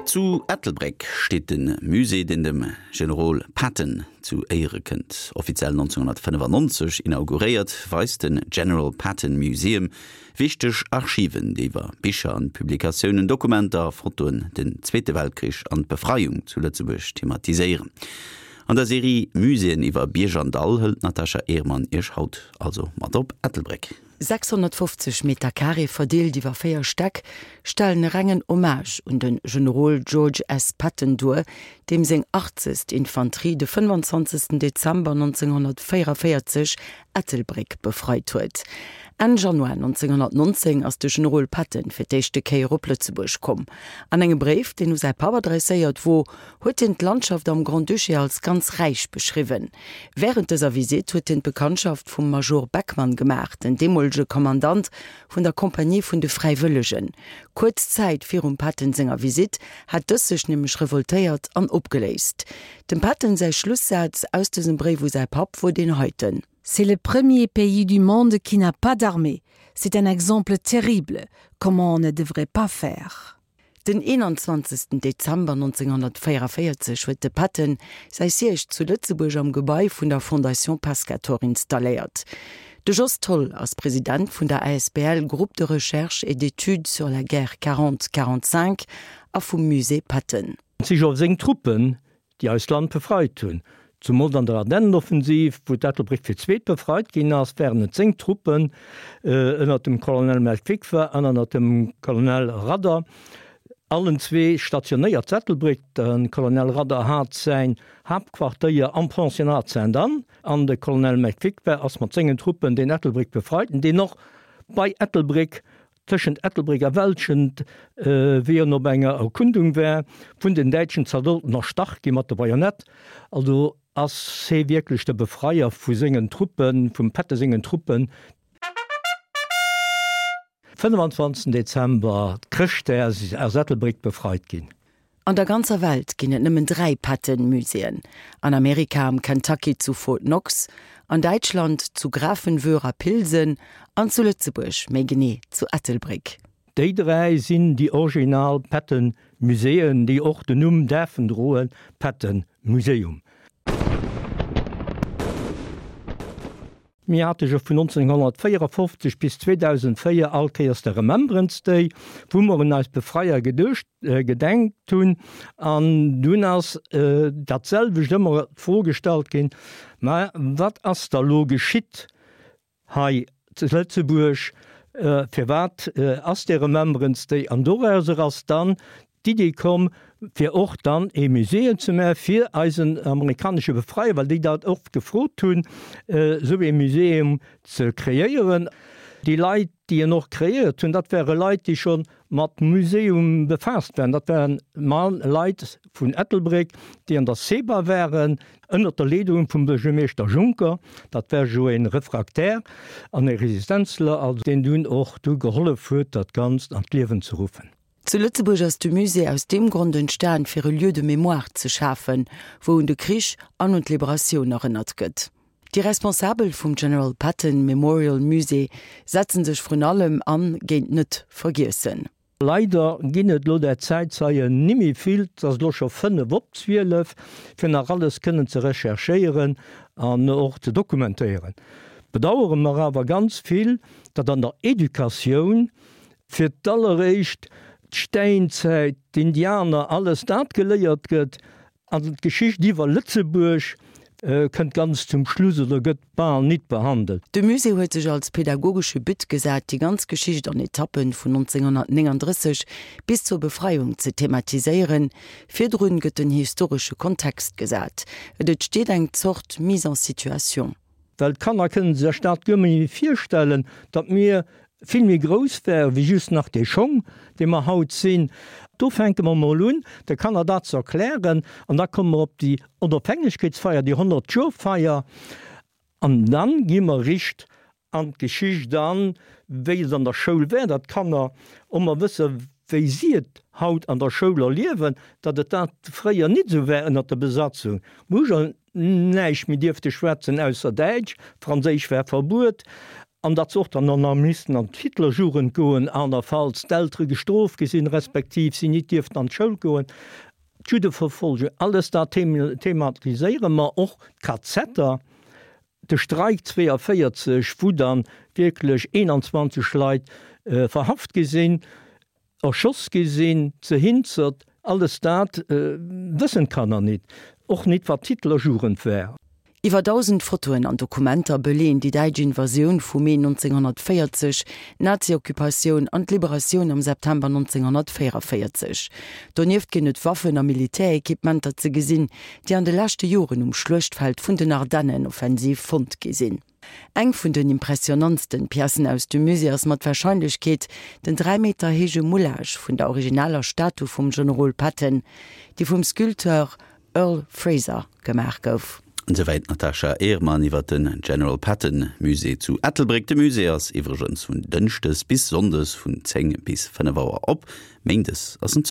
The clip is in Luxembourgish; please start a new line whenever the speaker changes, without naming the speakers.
Zu Ettelbréck steet de Musée, deen dem Generol Patton zu Éiere kënnt. Offiziell 1995 inauguréiert, weist den General Patton Museum wichteg Archiven, déi iwwer Bicher an Publikatiounen, Dokumenter a Fotoen den Zweete Weltkrich an d'Befreiung zu Lëtzebuerg thematiséieren. An der Serie Muséeën iwwer Bierg an Dall hëlt d'Natasha Ehrmann Iech haut also mat op Ettelbréck.
650 Meter-Carré verdeelt iwwer 4 Stäck stellen e rengen Hommage un de Generol George S. Patton duer, deem seng 80. Infanterie de 25. Dezember 1944 Ettelbréck befreit huet. Enn Januar 1919 ass de Generol Patton fir d'éischte Kéier op Lëtzebuerg komm. An engem Bréif, deen u säi Papp adresséiert wor, huet hien d'Landschaft am Grand-Duché als ganz räich beschriwwen. Wärend dëser Visitt huet hien d'Bekanntschaft vum Major Beckmann gemaach, den deemolege Kommandant vun der Kompanie vun de Fräiwëllegen. Kuerz Zäit virum Patton senger Visitt hat dës sech nämlech revoltéiert an opgeléist. Dem Patton säi Schlussaz aus dësem Bréif u säi Papp wor deen heiten.
C'est le premier pays du monde qui n'a pas d'armée. C'est un exemple terrible, comment on ne devrait pas faire.
Den 21. Dezember 1944 huet de Patton säi Siège zu Lëtzebuerg am Gebai vun der Fondation Pescator installéiert. De Jos Tholl ass President vun der asbl Groupe de recherche et d'études sur la guerre 40 45 a vum Musée Patton.
Et si jo seng Truppen, déi eist Land befreit hunn. Zumools an der Ardennenoffensiv, wou d'Ettelbréck fir d'zweet befreit ginn ass, waren et seng Truppen, ënnert dem Colonel Melkwikwa an ënnert dem Colonel Radder, allen zwee stationéiert zu Ettelbréck. De Colonel Radder hat säin Haaptquartéier am Pensionnat Sainte-Anne an de Colonel Melkwikwa ass mat sengen Truppen deen Ettelbréck befreit, deen och bei Ettelbréck Tëschent Ettelbréck a Welschent, wéi en op enger Erkundung war, vun den däitschen Zaldoten erstach gi mat der Bajonett. Also ass hee wierklech de Befreier vu sengen Truppen, vum Patton sengen Truppen. 25 Dezember, Chrëschtdag, ass Ettelbréck befreit ginn.
An der ganzer Welt ginn et nëmmen 3 Patton-Muséeën, an Amerika am Kentucky zu Fort Knox, an Däitschland zu Grafenwöhr a Pilsen an zu Lëtzebuerg, méi genee zu Ettelbréck.
Déi 3 sinn déi original Patton-Muséeën, déi och den Numm däerfen droen, Patton Museum. Mir hate jo vun 1954 bis 2004 all Kéiers de Remembrance Day, wou mer un eis Befreier geduecht, gedenkt hunn. An dunn ass dat selwecht ëmmer d'Fro gestallt ginn, Mä wat ass da lo geschitt hei zu Lëtzebuerg? Firwat ass dee Remembrance Day? An dorauser ass dann d'Idee komm, fir och dann ee Muséeum ze maachen fir eisen amerikanesche Befreier, well déi dat och gefrot hunn, esou ee Muséeum ze kreéieren. Déi Leit, déi en och kreéiert hunn, dat ware Leit, déi scho mat Muséeum befaasst waren. Dat waren Leit vun Ettelbréck, déi an der CEBA waren, ënnert der Leedung vum Buergermeeschter Juncker. Dat war jo ee Refraktär an ee Resistenzler, also deen dunn och du gehollef huet, dat Ganzt an d'Liewen ze ruffen.
Zu Lëtzebuerg ass de Musée aus deem Grond entstan, fir e Lieu de mémoire ze schafen, wou un de Krich an un d'Liberatioun erënnert gëtt. Déi Responsabel vum General Patton Memorial Musée setzen sech vrun allem an géint d'Net-Vergiessen.
Leider ginn et lo der Zäitzeien nimmi vill, 't ass lo scho 5 op 12, fir nach alles kënnen ze recherchéieren an och ze dokumentéieren. Bedauere mer awer ganz vill, datt an der Educatioun Fir d'alleréischt d'Stäinzäit, d'Indianer, alles dat geléiert gëtt, an d'Geschicht iwwer Lëtzebuerg kënnt ganz zum Schluss oder gëtt bal nit behandelt.
De Musée huet sech als pedagogesche But gesat, déi ganz Geschicht an Etappen vun 1939 bis zur Befreiung ze thematiséieren. Virdrun gëtt den historesche Kontext gesat. Et entsteet eng Zort Mise en situation.
Well d'Kanner kënnen sech dat guer méi virstellen, datt mir vill méi grouss wäre wéi just nach dee Schong, dee mer haut sinn. Do fänke mer mol un, de Kanner dat ze erklären an da komme mer op déi Onofhängegkeetsfeier, déi Honnertjoerfeier an dann gi mer richt an d'Geschicht an, wéi et an der Schoul wär, datt d'Kanner och mol wësse wéi si et haut an der Schoul erliewen, datt et dat fréier nit esou war ënnert der Besatzung. Näischt méi dierfte schwätzen ausser Däitsch, Franséisch war verbuet. An datt se och dann nach missten an d'Hitlerjugend goen, anerfalls d'Eltere gestrooft gi sinn, respektiv si nit dierften an d'Schoul goen. D'Juddeverfolgung, alles dat thematiséiere mer, och d'KZer, de Streik 42, wou dann wierklech 21 Leit verhaft gi sinn, erschoss gi sinn, ze Hinzert, alles dat wëssen d'Kanner nit, och nit wat d'Hitlerjugend war.
Iwwer 1.000 Fotoen an Dokumenter beleeën déi däitsch Invasioun vu Mee 1940, d'Nazi-Occupatioun an d'Liberatioun am September 1944. Donieft ginn et Waffen a Militärequipementer ze gesinn, déi an de leschte Joren um Schluechtfeld vun den Ardennenoffensiv fonnt gi sinn. Eng vun den impressionantsten Piècen aus dem Musée ass mat Warscheinlechkeet den 3 Meter héije Moulage vun der originaler Statu vum Generol Patton, déi vum Sculpteur Earle Fraser gemaach gouf.
Esouwäit d'Natasha Ehrmann iwwer den General Patton Musée zu Ettelbréck. De Musée ass iwwregens vun Dënschdes bis Sonndes vun 10 bis 5 Auer op, Méindes ass en zou.